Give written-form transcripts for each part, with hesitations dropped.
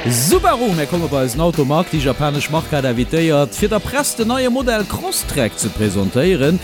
Subaru, Mir komme bei eisen Automarkt. Déi japanesch Mark hat invitéiert, fir der Press den neie Modell Crosstrek ze presentéieren.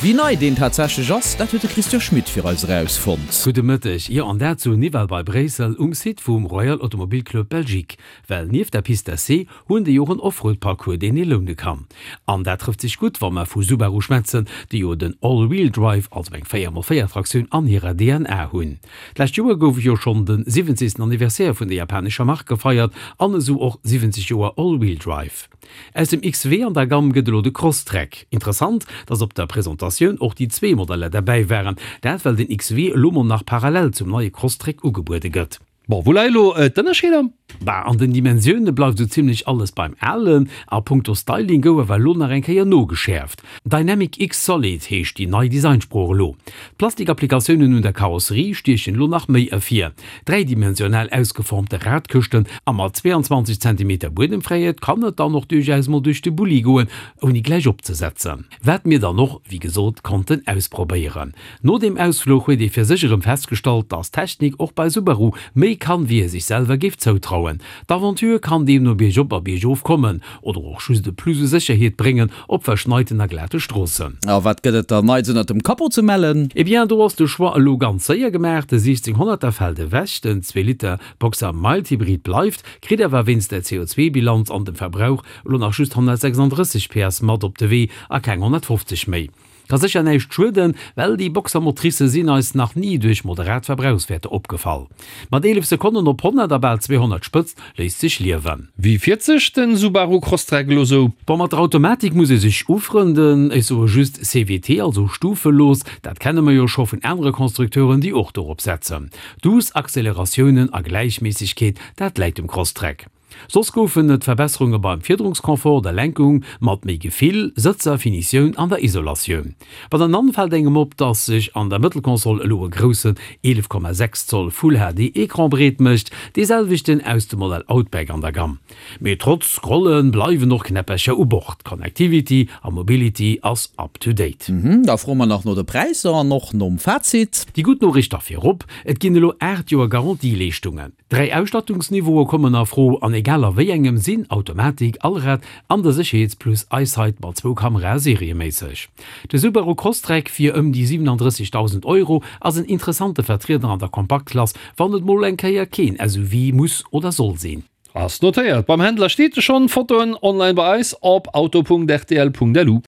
Wéi nei deen tatsächlech ass, dat huet de Christian Schmit fir eis erausfonnt. Gudde Mëtteg. Jo, an dat zu Nivelles bei Bréissel um Site vum Royal Automobile Club Belgique. Well nieft der Piste d'essai hunn déi och en Offroad-Parcours, deen ee loune kann. An dat trëfft sech gutt, wa mer vu Subaru schwätzen, déi jo den All-Wheel-Drive, also eng 4x4 Traktioun, an hirer DNA hunn. D'lescht Joer gouf jo schonn de 70. Anniversaire vun der japanescher Mark gefeiert an esou och 70 Joer All-Wheel-Drive. Aus dem XW an der Gamm gëtt elo de Crosstrek. Interessant, dass op der Presentatioun och déi zwee Modeller derbäi waren, dat well den XW elo mol nach parallel zum neie Crosstrek ugebuede gëtt. Bon, wou leie lo d'Ënnerscheeder? Bah, an den Dimensioune bleift esou zimlech alles beim Alen, a punkto Styling gouf awer elo nach eng Kéier nogeschäerft. Dynamic X Solid heescht déi nei Designsprooch elo. D'Plastikapplikatiounen un der Karosserie stiechen elo nach méi ervir. Dräidimensional ausgeformte Radkëschten a mat 22 Zentimeter Buedemfräiheet kann et dann och duerchaus mol duerch de Bulli goen, ouni gläich opzesetzen. Wat mir dann och, wéi gesot, konnten ausprobéieren. No deem Ausfluch huet ee fir sech erëm festgestallt, dass Technik och bei Subaru méi kann, wéi ee sech selwer géif zoutrauen. D'Aventure kann deemno biergop a biergof kommen oder och just e Plus u Sécherheet bréngen op verschneiten a glate Stroossen. A wat gëtt et dann Neits ënnert dem Capot ze mellen? Eh bien, do ass de Choix elo ganz séier gemaach, de 1600er fält ewech, den Zweeliter Boxer Mild Hybrid bleift, kritt awer wéinst der CO2-Bilanz an dem Verbrauch elo nach just 136 PS mat op de Wee a keng 150 méi. Ka sécher näischt schueden, well déi Boxer-Motricë sinn eis nach ni duerch moderat Verbrauchswäerter opgefall. Mat 11 Sekonnen op 100 a bal 200 Spëtzt léisst sech liewen. Wéi fiert sech den Subaru Crosstrek elo sou? Bon, mat der Automatik muss ee sech ufrënden, ech soe just CVT, also stufelos, dat kenne mer jo scho vun anere Constructeuren, déi och dorop setzen. Duuss Acceleratiounen a Gläichméissegkeet, dat läit dem Crosstrek. Soss goufen et Verbesserunge beim Fiederungsconfort, der Lenkung mat méi Gefill, Sëtzer, Finitioun an der Isolatioun. Bei der Nann fält engem op, dass sech an der Mëttelkonsol elo e groussen 11,6 Zoll Full HD Ecran breet mécht, dee selwechten aus dem Modell Outback an der Gamm. Mee trotz Scrolle bleiwen och Knäppercher u Bord, Connectivity a Mobility ass up to date. Da froe mer nach no de Präisser an och nom Fazit. Déi gutt Noriicht da virop, Et ginn elo 8 Joer Garantieleeschtungen. Dräi Ausstattungsniveaue kommen a Fro, an egal a wéi engem sinn Automatik, Allrad an de Sécherheetsplus EyeSight mat zwou Kamerae serieméisseg. De Subaru Crosstrek fir ëm déi 37.000 Euro ass en interessante Vertrieder an der Kompaktklass, wann et mol eng Kéier keen SUV muss oder soll sinn. Ass notéiert. Beim Händler steet e schonn. Fotoen online bei eis op auto.rtl.lu.